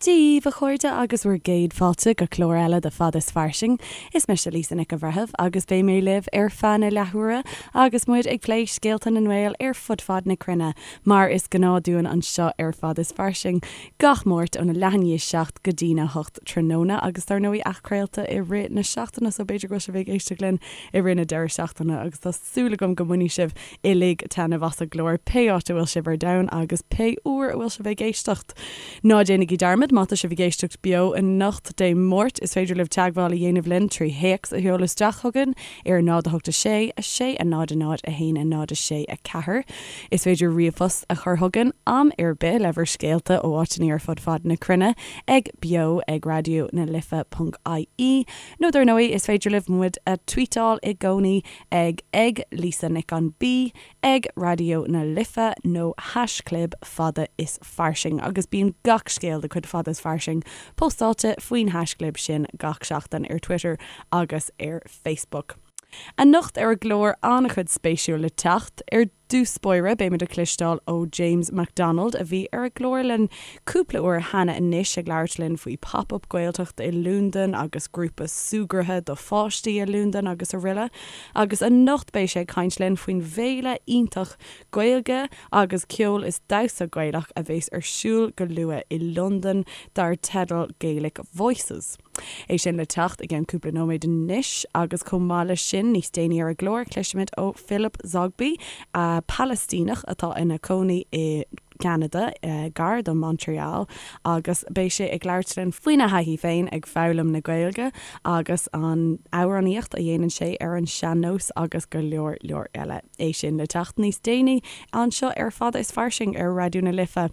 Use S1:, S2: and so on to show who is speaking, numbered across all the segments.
S1: Dia daoibh, a chairde, agus bhur gcéad fáilte go clár eile de Fada is Fairsing. Is mise Lisa Nic an Bhreithimh agus beidh mé libh ar feadh na leathuaire agus muid ag plé scéalta na nGael ar fud fad na cruinne, mar is gnáth dúinn anseo ar Fada is Fairsing gach Máirt óna leath i ndiaidh 7 go dtína 8 tráthnóna agus dar ndóigh athchraolta i rith na seachtaine so b'fhéidir go bhfuil sibh ag éisteacht linn i rith na deireadh seachtaine agus tá súil agam go mbainfidh sibh uilig taitneamh as an gclár, pé áit a bhfuil sibh ar domhan agus pé uair a bhfuil sibh ag éisteacht. Ná déanaigí dearmad, má tá sibh ag éisteacht beo anocht, Dé Máirt, is féidir libh teagmháil a dhéanamh linn trí théacs a sheoladh isteach chugainn ar 0 8 6 6 0 0 1 0 6 4. Is féidir ríomhphost a chur chugainn am ar bith le bhur scéalta ó áiteanna ar fud fad na cruinne ag beo ag raidió na life ponc ie Nó dar ndóigh is féidir libh muid a tweetáil i gcónaí ag ag Lisa Nic an B, ag Raidió na Life nó haischlib Fada is Fairsing agus bíonn gach scéal de chuid Fada is Fairsing postáilte faoin haischlib sin gach seachtain ar Twitter agus ar Facebook. Anocht ar an gclár an-chuid spéisiúil le teacht. Ar dtús báire, beimid ag cloisteáil ó James McDonald, a bhí ar an gclár linn cúpla uair cheana anois, ag labhairt linn faoi Pop Up Gaeltacht i Londain agus grúpa súgartha do pháistí i Londain agus aroile. Agus anocht beidh sé ag caint linn faoin bhféile iontach Gaeilge agus ceol is damhsa Gaelach a bheas ar siúl go luath i Londain dar teideal Gaelic Voices. É sin le teacht i gceann cúpla nóiméad anois agus chomh maith leis sin, níos déanaí ar an gclár, cloisfimid ó Philip Zogby, Palaistíneach atá ina chónaí i gCeanada, gar do Montreal, agus beidh sé ag labhairt linn faoina thaithí féin ag foghlaim na Gaeilge agus an amhránaíocht a dhéanann sé ar an sean-nós agus go leor leor eile. É sin le teacht níos déanaí anseo ar Fada is Fairsing ar Raidió na Life.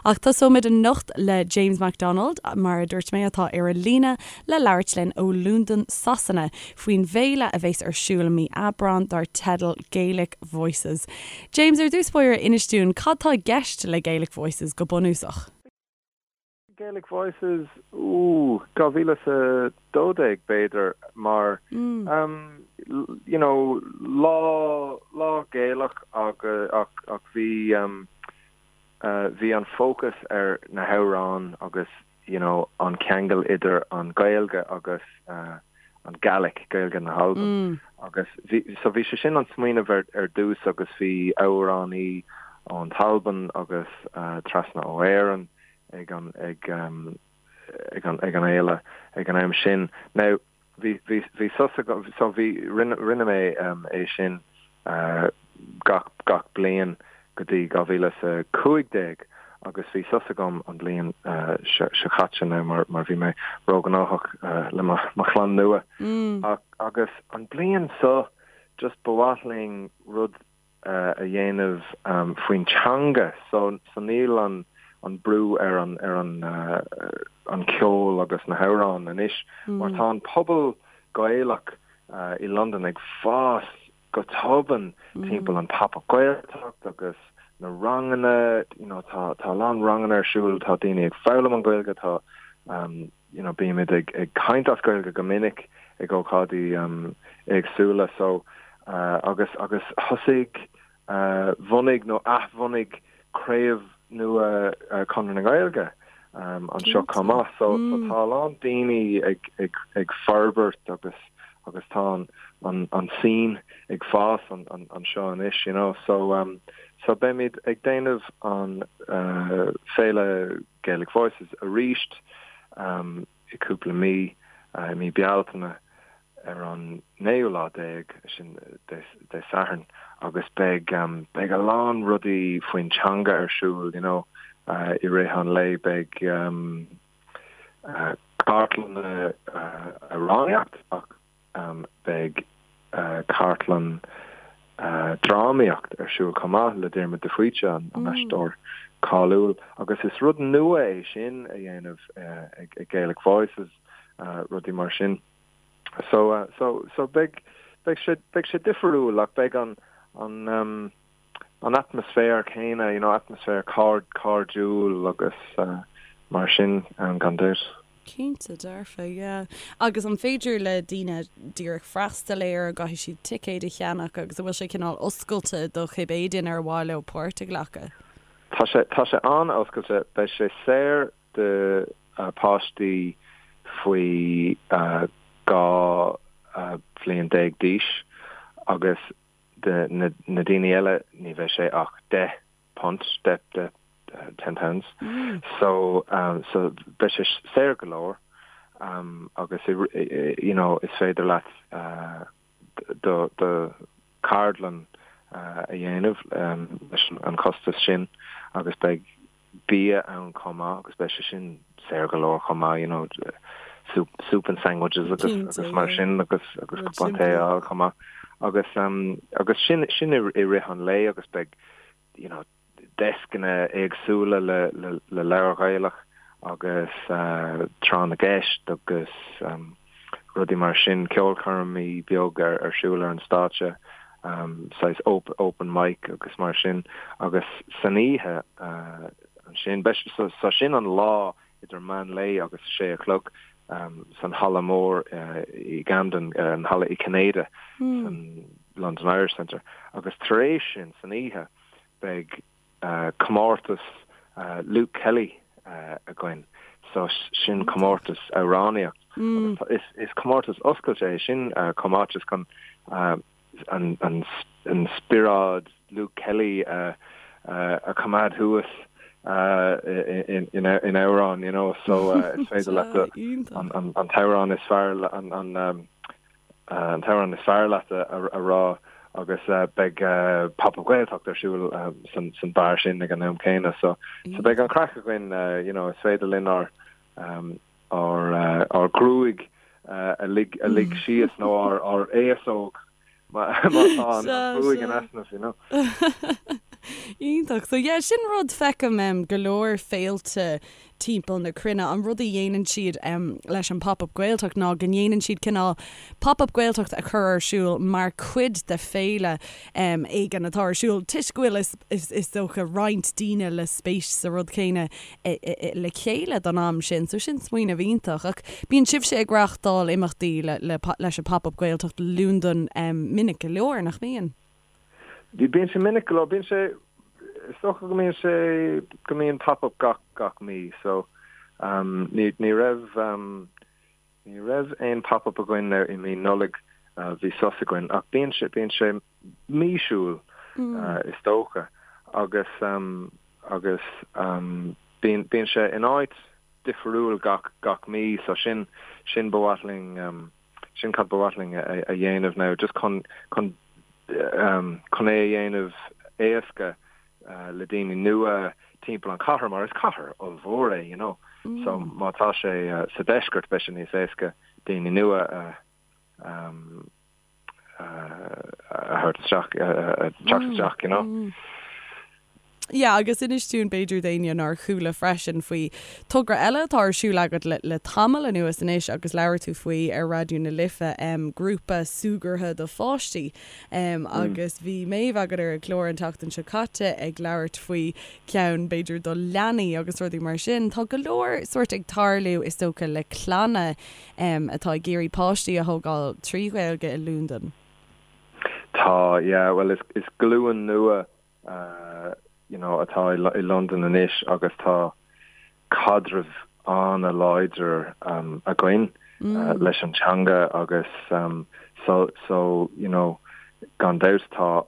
S1: Ach tosóimid anocht le James McDonald, mar a dúirt mé, atá ar an líne le labhairt linn ó Londain, Sasana, faoin bhféile a bheas ar siúl i mí Aibreáin dar teideal Gaelic Voices. James, ar dtús báire, inis dúinn, cad tá i gceist le Gaelic Voices go bunúsach?
S2: Gaelic Voices, ooh, 2012 b'fhéidir, mar you know, lá, lá Gaelach ach, ach bhí, bhí an fócas ar na hamhráin agus you know an ceangal idir an Ghaeilge agus an Gaelic, Gaeilge na hAlban. Agus bhí, so bhí sé sin an smaoineamh ar, ar dtús agus bhí amhránaí ón tAlbain agus trasna ó Éirinn ag an, ag, ag an, ag an fhéile ag an am sin. Now, Bhí, bhí, bhí sos agam, so bhí, rinne, rinne mé é sin gach, gach bliain go dtí 2015 agus bhí sos agam an bhliain seo, seo caite now mar, mar bhí mé róghnóthach le mo, mo chlann nua. Ach, agus an bliain seo just ba mhaith linn rud a dhéanamh faoin teanga so so níl an an brú ar an ar an an ceol agus na hamhráin anois mar tá an pobal Gaelach i Londain ag fás go tobann timpeall an Pop Up Gaeltacht agus na ranganna you know tá tá a lán ranganna ar siúl tá daoine ag foghlaim an Ghaeilge tá you know bímid ag ag caint as Gaeilge go minic ag ócáidí éagsúla so agus agus thosaigh bhunaigh nó athbhunaigh craobh nua Conradh na Gaeilge anseo chomh maith so so tá a lán daoine ag ag ag forbairt agus agus tá an an an scene ag fás an an anseo anois you know so so beimid ag déanamh an féile Gaelic Voices arís i cúpla mí, i mí Bealtaine ar an naoú lá déag, sin Dé Sathairn, agus beidh beidh a lán rudaí faoin teanga ar siúl, you know, i rith an lae beidh cartlanna amhránaíocht ach Beidh cartlann drámaíocht ar siúl chomh maith le Diarmuid de Faoite, an aisteoir cáiliúil, agus is rud nua é sin a dhéanamh ag Gaelic Voices, rudaí mar sin. So, so, so beidh, beidh sé, beidh sé difriúil ach beidh an, an, an atmaisféar céanna, you know, atmaisféar cairdiúil agus mar sin gan dabht.
S1: Cinnte dearfa, yeah. Agus an féidir le daoine díreach freastal air, an gcaithfidh siad ticéid a cheannach agus an bhfuil sé cineál oscailte do cibé duine ar mhaith leo páirt a ghlacadh?
S2: Tá sé, tá sé an-oscailte, beidh sé saor do. páistí faoi 12 bhliain d'aois agus do na daoine eile ní bheidh sé ach £10, 10, £10. So so beidh sé saor go leor agus you know is féidir leat do do cheardlann a dhéanamh leis an chostas sin agus beidh bia ann chomh maith agus beidh sé sin saor go leor chomh maith, you know, soup, soup and sandwiches agus agus mar sin agus agus cupán tae a fháil chomh maith agus agus sin sin i rith an lae agus beidh you know deascanna éagsúla le le le leabhair Ghaelach agus tráth na gceist agus rudaí mar sin, ceolchoirmí beag ar siúl ar an stáitse, saghas open mic agus mar sin agus san oíche ansin, beidh, so sin an lá idir meán lae agus a sé a chlog san halla mór i gCamden, an halla Uí Chinnéide san London Irish Centre agus tar éis sin san oíche beidh comórtas Luke Kelly againn so sin comórtas amhránaíocht agus is comórtas oscailte é sin chomh maith just chun an spiorad Luke Kelly a choimeád thuas in amhrán you know so is féidir leat an t-amhrán is fearr an an t-amhrán is fearr leat a rá agus beidh Pop Up Gaeltacht ar siúl san beár sin ag an am céanna so so beidh an craic againn you know is féidir linn ár ár ár gruaig a lig a lig síos nó ár ár fhéasóg má tá an ghruaig in easnamh you know.
S1: Iontach. So yeah, sin rud feicim go leor féilte timpeall na cruinne. An rud a dhéanann siad leis an Pop Up Gaeltacht ná go ndéanann siad cineál Pop Up Gaeltacht a chur ar siúl mar chuid de féile éigin atá ar siúl toisc go bhfuil is dócha roinnt daoine le spéis sa rud céanna le chéile don am sin. So sin smaoineamh iontach. Ach bíonn sibhse ag reáchtáil imeachtaí leis an Pop Up Gaeltacht Londain minic go leor, nach mbíonn?
S2: Bíonn sé minic go leor. Bíonn sé, is dócha go mbíonn sé, go mbíonn pop-up gach, gach mí. So, ní, ní raibh, ní raibh aon pop-up againn i mí Nollag, bhí sos againn. Ach bíonn sé, bíonn sé míosúil, is dócha. Agus, agus bíonn, bíonn sé in áit difriúil gach, gach mí. So sin, sin ba mhaith linn, Sin cad ba mhaith linn a dhéanamh now, just chun, chun, chun é a dhéanamh éasca le daoine nua timpeall an chathair, mar is cathair ollmhór é, you know. So má tá sé sa deisceart beidh sé níos éasca daoine nua a, a thabhairt isteach, a teacht isteach, you know.
S1: Yeah, agus inis dúinn b'fhéidir d'éinne nár chuala freisin faoi togra eile atá ar siúl agat le le tamall anuas anois agus labhair tú faoi ar Raidió na Life, em, grúpa súgartha do pháistí. Em, agus bhí Méabh agat ar an gclár an tseachtain seo caite ag labhairt faoi ceann b'fhéidir do leanaí agus rudaí mar sin. Tá go leor sórt ag tarlú is dócha le clanna, em, atá ag iarraidh páistí a thógáil trí Ghaeilge i Londain.
S2: Tá, yeah, bhuel is is glúin nua you know, atá i Londain anois agus tá caidreamh an-láidir againn leis an teanga agus so, so, you know, gan dabht tá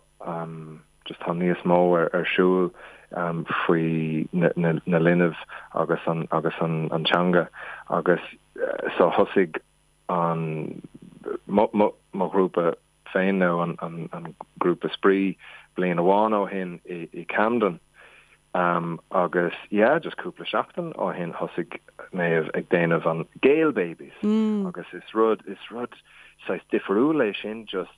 S2: just tá níos mó ar ar siúl faoi na na na linbh agus an agus an an teanga agus so thosaigh an mo mo mo ghrúpa féin nó an grúpa Spraoi bliain amháin ó shin i Camden agus yeah just cúpla seachtain ó shin thosaigh Méabh ag déanamh an Gael Babies agus is rud is rud saghas difriúil é sin just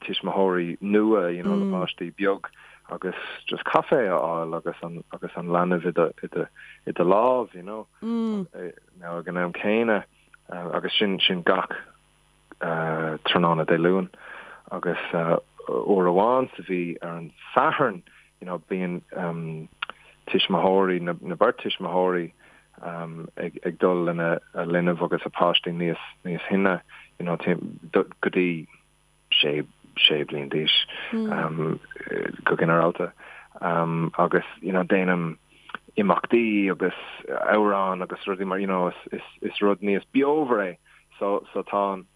S2: tuismitheoirí nua you know le páistí beag agus just caife a fháil agus an agus an leanbh i do i do i do lámh you know now ag an am céanna agus sin sin gach tráthnóna Dé Luain agus uair amháin sa mhí ar an Satharn you know bíonn tuismitheoirí, na beirt tuismitheoirí ag dul lena linbh agus a páistí níos níos sine you know go dtí sé sé bliain d'aois go ginearálta agus you know déanaim. imeachtaí agus amhráin agus rudaí mar you know is is is rud níos beomhar é so so tá an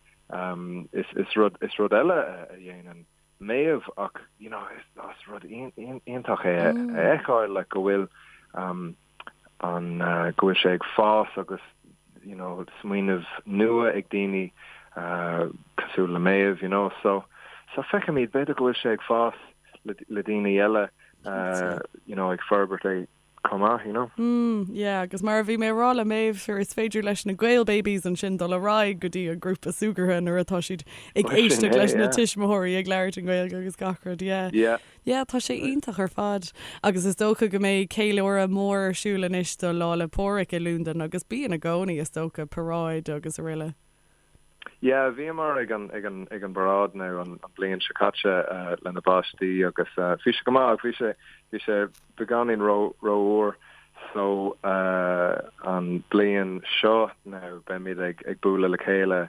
S2: um is is rud is rud eile a dhéanann Méabh ach you know is is rud iontach é a fheiceáil like go bhfuil um an go bhfuil sé ag fás agus you know smaoineamh nua ag daoine cosúil le Méabh you know so so feicfimid b'fhéidir go bhfuil sé ag fás le le daoine eile you know ag forbairt é chomh maith you know.
S1: Mm yeah agus mar a bhí mé a rá le Méabh sure is féidir leis na Gael babies ansin dul ar aghaidh go dtí an grúpa súgartha nuair atá siad ag éisteacht leis na tuismitheoirí ag labhairt i nGaeilge agus gach rud yeah.
S2: Yeah.
S1: Yeah, tá sé iontach ar fad. Agus is dócha go mbeidh ceiliúradh mór ar siúl anois do Lá 'le Pádraig i Londain agus bíonn i gcónaí, is dócha, paráid agus araile.
S2: Yeah, bhíomar ag an, ag an, ag an bparáid now an bliain seo caite le na bpáistí agus bhí sé go maith ach bhí sé, bhí sé beagáinín ró, rófhuar so an bliain seo now beimid ag, ag bualadh le chéile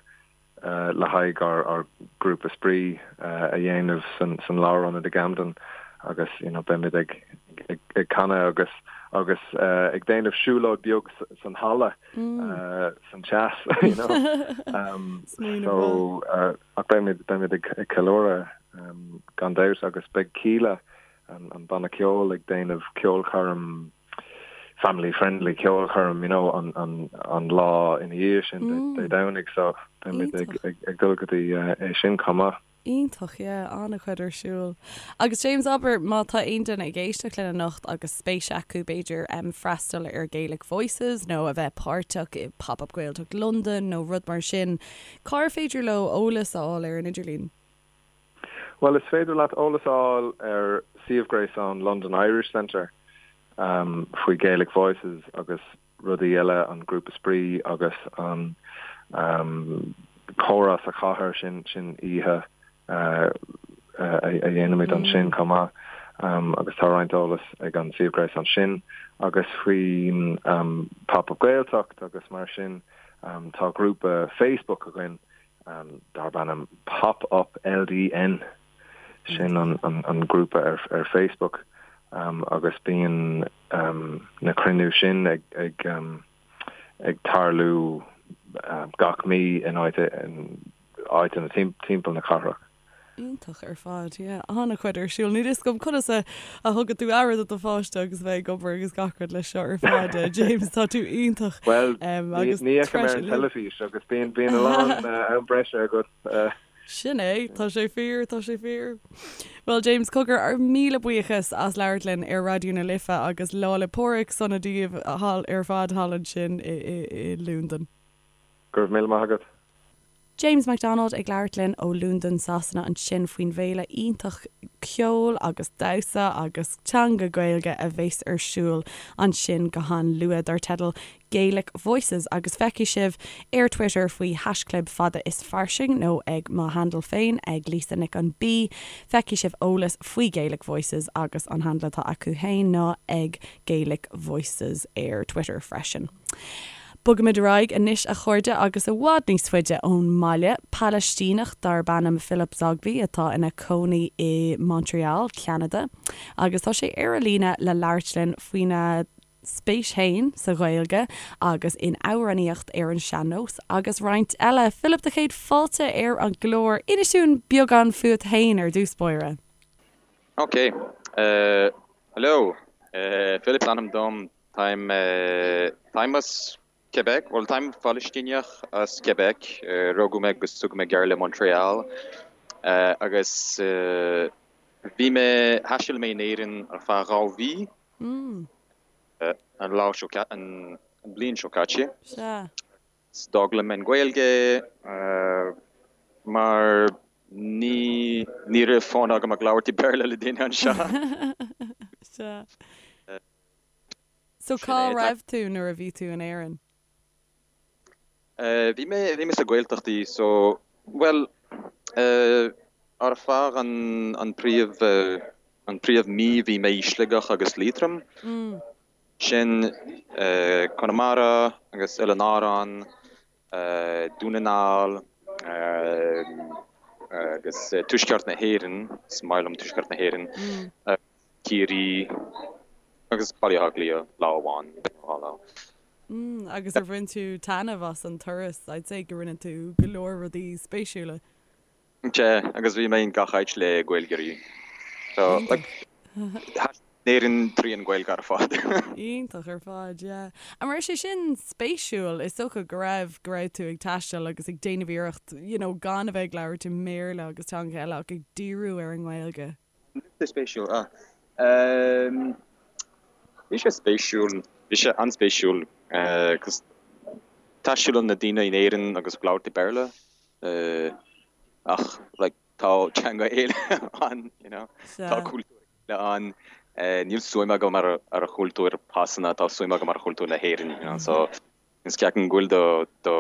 S2: le haghaidh ár grúpa spraoi a dhéanamh san lárionad i gCamden agus you know beimid ag ag canadh agus agus ag déanamh siúlóid beag san halla san teas you know so ach beimid beimid ag ceiliúradh gan dabht agus beidh Kíla an banna ceoil ag déanamh ceolchoirm family friendly ceolchoirm you know an an an lá ina dhiaidh sin Dé Domhnaigh so beimid ag ag dul go dtí é sin chomh maith.
S1: Iontach, yeah, an-chuid ar siúl. Agus James, abair, má tá aon duine ag éisteacht linn anocht agus spéis acu b'fhéidir freastal ar Gaelic Voices nó a bheith páirteach i Pop Up Gaeltacht Londain nó rud mar sin, cár féidir leo eolas a fháil ar an idirlíon?
S2: Bhuel, is féidir leat eolas a fháil ar suíomh gréasáin London Irish Centre faoi Gaelic Voices agus rudaí eile, an grúpa spraoi agus an comhrá sa chathair, sin sin oíche a dhéanaimid ansin chomh maith agus tá roinnt eolas ag an suíomh gréasáin sin agus faoin Pop Up Gaeltacht agus mar sin tá grúpa Facebook againn darb ainm Pop Up LDN, sin an grúpa ar Facebook agus bíonn na cruinniú sin ag tarlú gach mí in áiteanna timpeall na cathrach.
S1: Iontach ar fad, yeah. An-chuid ar siúl. Níl fhios agam conas a a thugann tú aire do do pháiste agus a bheith ag obair agus gach rud leis seo ar fad, James, tá tú iontach.
S2: Bhuel, ní fheicim ar an teilifís agus bíonn bíonn a lán am breise agat.
S1: Sin é, tá sé fíor, tá sé fíor. Bhuel, James, cogar, míle buíochas as labhairt linn ar Raidió na Life agus Lá 'le Pádraig sona daoibh ar fad thall ansin i i Londain.
S2: Go raibh míle maith agat.
S1: James McDonald ag labhairt linn ó Londain, Sasana ansin faoin bhféile iontach ceoil agus damhsa agus teanga Gaeilge a bheas ar siúl ansin go han-luath dar teideal Gaelic Voices agus feicfidh sibh ar Twitter faoi haischlib fada is fairsing nó ag mo handle féin ag Lisa Nic an B feicfidh sibh eolas faoi Gaelic Voices agus an handle atá acu féin ná ag Gaelic Voices ar Twitter freisin. Bogaimid ar aghaidh anois, a chairde, agus i bhfad níos faide ón mbaile. Palaistíneach darb ainm Philip Zogby atá ina cónaí i Montreal, Ceanada, agus tá sé ar an líne le labhairt linn faoina spéis féin sa Ghaeilge agus in amhránaíocht ar an sean-nós agus roinnt eile. Philip, do chéad fáilte ar an gclár. Inis dúinn beagán fút féin ar dtús báire.
S3: Ok. Hello. Philip is ainm dom. Táim, táim as Québec, bhuel táim Palaistíneach as Québec, rugadh mé agus tógadh mé gar le Montreal agus bhí mé, thaistil mé in Éirinn ar feadh 2 mhí an lá seo, an bliain seo caite.
S1: Sea.
S3: D'fhoghlaim mé an Ghaeilge mar ní, ní raibh fonn agam ag labhairt i Béarla le daoine anseo.
S1: Sea. So cá raibh tú nuair a bhí tú in Éirinn?
S3: Bhí mé, bhí mé sa Gaeltachtaí so, bhuel, ar feadh an, an príomh, an príomh mí bhí mé i Sligeach agus Liatroim. Sin Conamara agus Oileáin Árann, Dún na nGall agus Tuaisceart na hÉireann, is maith liom Tuaisceart na hÉireann, Ciarraí. Agus Baile Átha Cliath lá amháin nó dhá lá.
S1: Mm, agus ar bhain tú taitneamh as an turas? I'd say go rinne tú go leor rudaí spéisiúla.
S3: Sea, agus bhí mé in gach áit le Gaeilgeoirí. So, like, thaistil Éirinn trí an Ghaeilge ar fad.
S1: Iontach ar fad, yeah. An raibh sé sin spéisiúil? Is dócha go raibh, go raibh tú ag taisteal agus ag déanamh iarracht, you know, gan a bheith ag labhairt i mBéarla agus teangacha eile ach ag díriú ar an nGaeilge.
S3: Bhí sé spéisiúil, ah. Bhí sé spéisiúil, bhí sé an-spéisiúil, cos taistealann na daoine in Éirinn agus ag labhairt i Béarla ach like tá teanga eile ann, you know, tá cultúr eile ann. Níl suim agam ar ar chultúr Shasana, tá suim agam ar chultúr na hÉireann, you know, so is ceapaim go bhfuil do do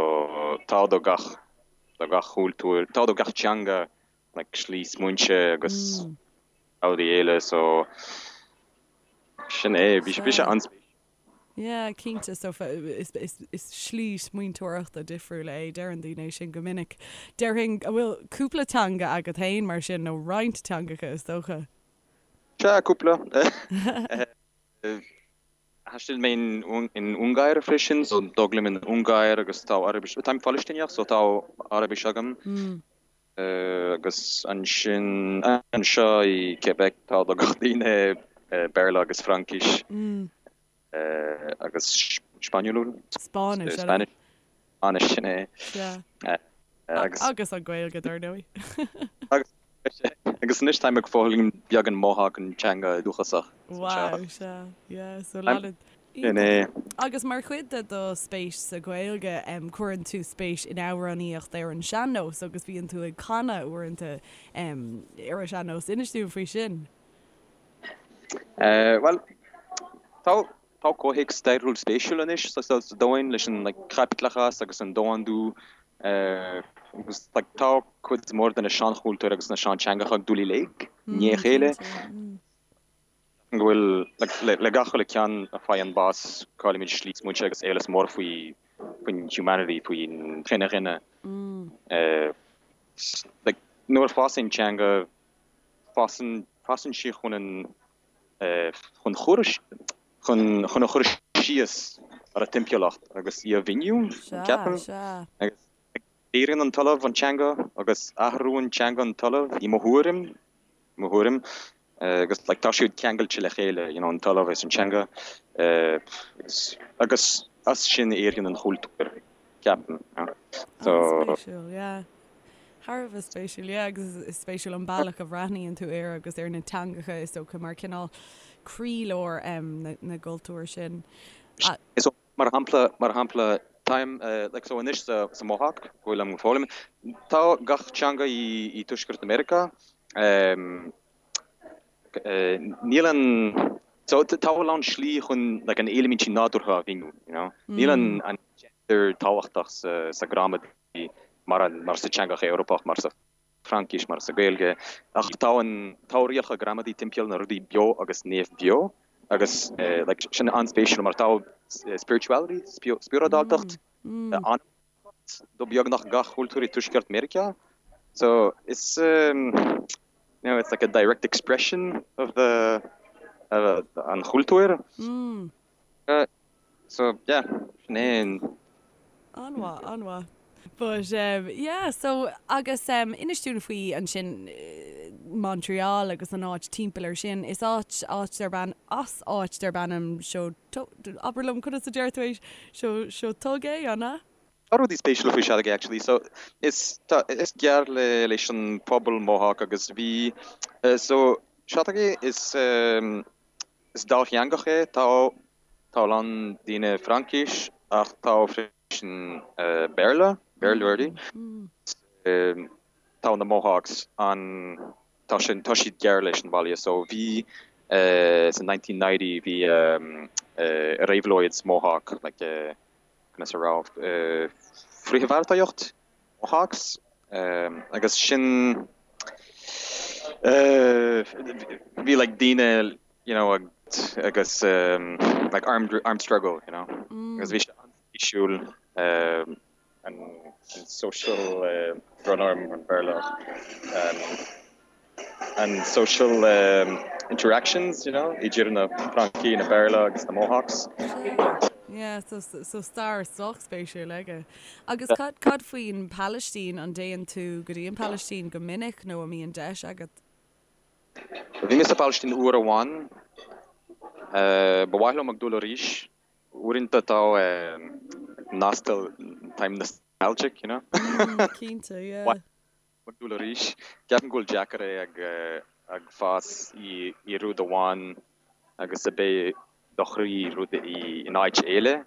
S3: tá do gach do gach cultúr, tá do gach teanga like slí smaointe agus rudaí eile so sin é, bhí sé an-spéisiúil.
S1: Yeah, cinnte, so is is slí smaointeoireachta difriúil é, deireann daoine é sin go minic. Déarfainn, an bhfuil cúpla teanga agat féin mar sin, nó roinnt teangacha is dócha?
S3: Sea, cúpla. Thaistil mé in Ungáir freisin, so d'fhoghlaim an Ungáir agus tá Araibis, táim Palaistíneach so tá Araibis agam. Agus ansin anseo i Québec tá do gach duine Béarla agus Fraincis agus Spáinniúil.
S1: Spáinnis,
S3: eile. Spáinnis, sin é.
S1: Agus. Agus an Ghaeilge, dar ndóigh.
S3: Agus anois táim ag foghlaim beagán Mohawk an teanga dúchasach.
S1: Wow, sea, yeah, so leanann.
S3: Sin é.
S1: Agus mar chuid de do spéis sa Ghaeilge, cuireann tú spéis in amhránaíocht ar an sean-nós agus bíonn tú ag canadh uaireanta ar an sean-nós. Inis dúinn faoi sin.
S3: Bhuel, tá tá comhthéacs stairiúil spéisiúil anois sa sa domhan leis an like caipitleachas agus an domhandú agus like tá cuid mhór de na seanchultúir agus na seanteangacha ag dul i léig i ndiaidh a chéile. Go bhfuil, le gach uile ceann a faigheann bás, caillimid slí smaointe agus eolas mór faoi faoin humanity, faoin chine dhaonna. Like, nuair a fásann teanga, fásann, fásann sí chun an, chun chur, chun, chun a chur síos ar a timpeallacht agus í a mhíniú, ceapaim. Agus éiríonn an talamh an teanga agus athraíonn teanga an talamh, i mo thuairim, mo thuairim. Agus like tá siad ceangailte le chéile, you know, an talamh is an teanga agus as sin éiríonn an chultúr, ceapaim.
S1: So. An-spéisiúil, yeah. Thar a bheith spéisiúil, yeah, agus is spéisiúil an bealach a bhreathnaíonn tú air agus ar na teangacha is dócha mar cineál croílár na gcultúr sin.
S3: Is Mar shampla, mar shampla, táim, like, so anois sa, sa Mohawk, go bhfuilim ag foghlaim, tá gach teanga i, i Tuaisceart Meiriceá, ehm, eh, níl an, so tá a lán slí chun, like, an eilimintí nádúrtha a mhíniú, you know? Níl an, an gender tábhachtach sa, sa gramadaí mar an, mar sa teangacha Eorpach, mar sa. Fraincis mar sa Ghaeilge, ach tá an tá rialacha gramadaí timpeall na rudaí beo agus neamhbheo agus like sin an-spéisiúil mar tá spirituality, spioradáltacht, anam do beagnach gach cultúr i Tuaisceart Meiriceá. So is you know it's like a direct expression of the an chultúir. So, yeah, sin é an.
S1: An-mhaith, an-mhaith. But, um, yeah, so, agus um, inis dúinn faoi ansin Montreal agus an áit timpeall ar sin. Is áit, áit darb ainm, as áit darb ainm Seo, abair liom conas a deir tú é, Seo, Chateauguay, an ea?
S3: Tá rudaí spéisiúla faoi Chateauguay actually. So, is, tá, is gearr le, leis an pobal Mohawk agus bhí, so, Chateauguay is, um, Is dátheangach é, tá tá a lán daoine Fraincis ach tá freisin Béarla, Béarlóirí. Tá na Mohawks an tá sin tá siad gearr leis an bhaile so bhí sa 1990 bhí réabhlóid Mohawk like conas a rá frithbheartaíocht Mohawks agus sin bhí like daoine you know agus like armed armed struggle you know agus bhí sé an-spéisiúil an social brón orm an Béarla. And social interactions, you know, idir na Francaigh, na Béarla agus na Mohawks.
S1: Yeah, so, so stair sách spéisiúil aige. Agus cad, cad faoin Palaistín, an dtéann tú go dtí an Palaistín go minic nó an mbíonn deis agat?
S3: Bhí mé sa Phalaistín uair amháin. Ba mhaith liom ag dul arís. Uaireanta tá nostal, táim nostalgic, you know.
S1: Cinnte, yeah.
S3: Ag dul arís. Ceapaim go bhfuil deacair é ag ag fás i i rud amháin agus a beidh do chroí rud i in áit eile.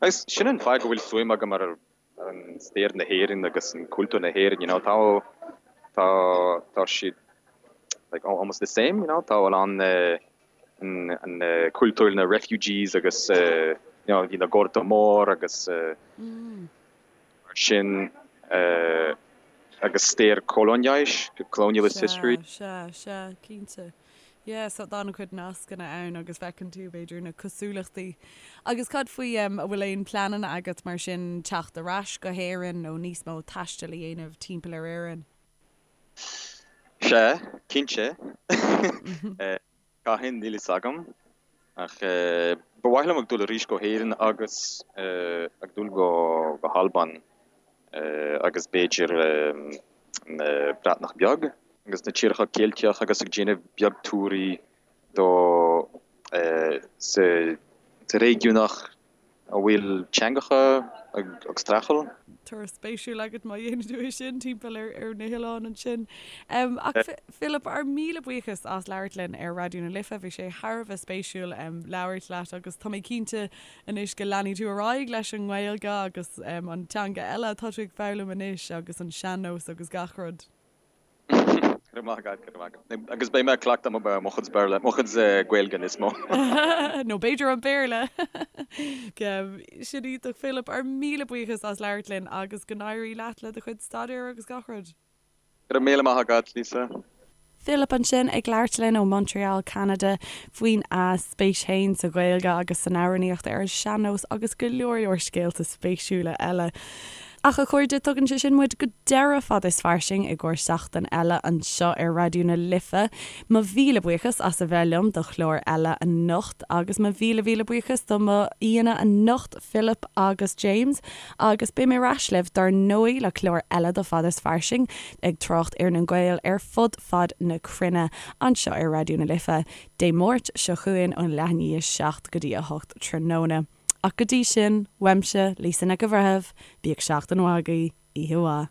S3: Agus sin an fáth go bhfuil suim agam ar ar an stair na hÉireann agus an cultúr na hÉireann, you know, tá tá tá siad like almost the same, you know, tá a lán an an cultúr na refugees agus you know, bhí na Gorta Mór agus mar sin agus stair colonialist, colonialist history.
S1: Sea, sea, cinnte. Yeah, so tá an-chuid nascanna ann agus feiceann tú, b'fhéidir, na cosúlachtaí. Agus cad faoi, an bhfuil aon pleananna agat mar sin teacht ar ais go hÉirinn nó níos mó taistil a dhéanamh timpeall ar Éirinn?
S3: Sea, cinnte. Cathain, níl fhios agam. Ach ba mhaith liom ag dul arís go hÉirinn agus ag dul go hAlbain agus b'fhéidir an Breatnach Beag agus na tíortha Ceilteach agus ag déanamh beag túraí do sa réigiúnach a bhfuil teangacha ag streachailt.
S1: Turas spéisiúil agat má dhéanann tú é sin timpeall ar na hoileáin ansin. Ach Philip, ár míle buíochas as labhairt linn ar Raidió na Life. Bhí sé thar a bheith spéisiúil labhairt leat agus tá mé cinnte anois go leanfaidh tú ar aghaidh leis an nGaeilge agus an teanga eile atá tú ag foghlaim anois agus an sean-nós agus gach rud.
S3: Go raibh maith agat, go raibh maith agat. Agus beidh mé ag cleachtadh mo chuid Béarla, mo chuid Gaeilge níos mó.
S1: Nó b'fhéidir an Béarla! Sin iontach Philip, ár míle buíochas as labhairt linn agus go n-éirí leat le do chuid staidéir agus gach rud.
S3: Go raibh míle maith agat, Lisa.
S1: Philip ansin ag labhairt linn ó Montreal, Ceanada faoina spéis féin sa Ghaeilge agus san amhránaíocht ar an sean-nós agus go leor leor scéalta spéisiúla eile. Ach a chairde, tugann sé sin muid go deireadh Fad is Fairsing i gcomhair seachtain eile anseo ar Raidió na Life. Mo mhíle buíochas as a bheith liom do chlár eile anocht agus mo mhíle mhíle buíochas do mo aíonna anocht, Philip agus James. Agus beidh mé ar ais libh dar ndóigh le clár eile de Fad is Fairsing ag trácht ar na Gaeil ar fud fad na cruinne anseo ar Raidió na Life Dé Máirt seo chugainn ón leath i ndiaidh 7 go dtí 8 tráthnóna. Ach go dtí sin, uaimse, Lisa Nic an Bhreithimh, bíodh seachtain mhaith agaibh, oíche mhaith.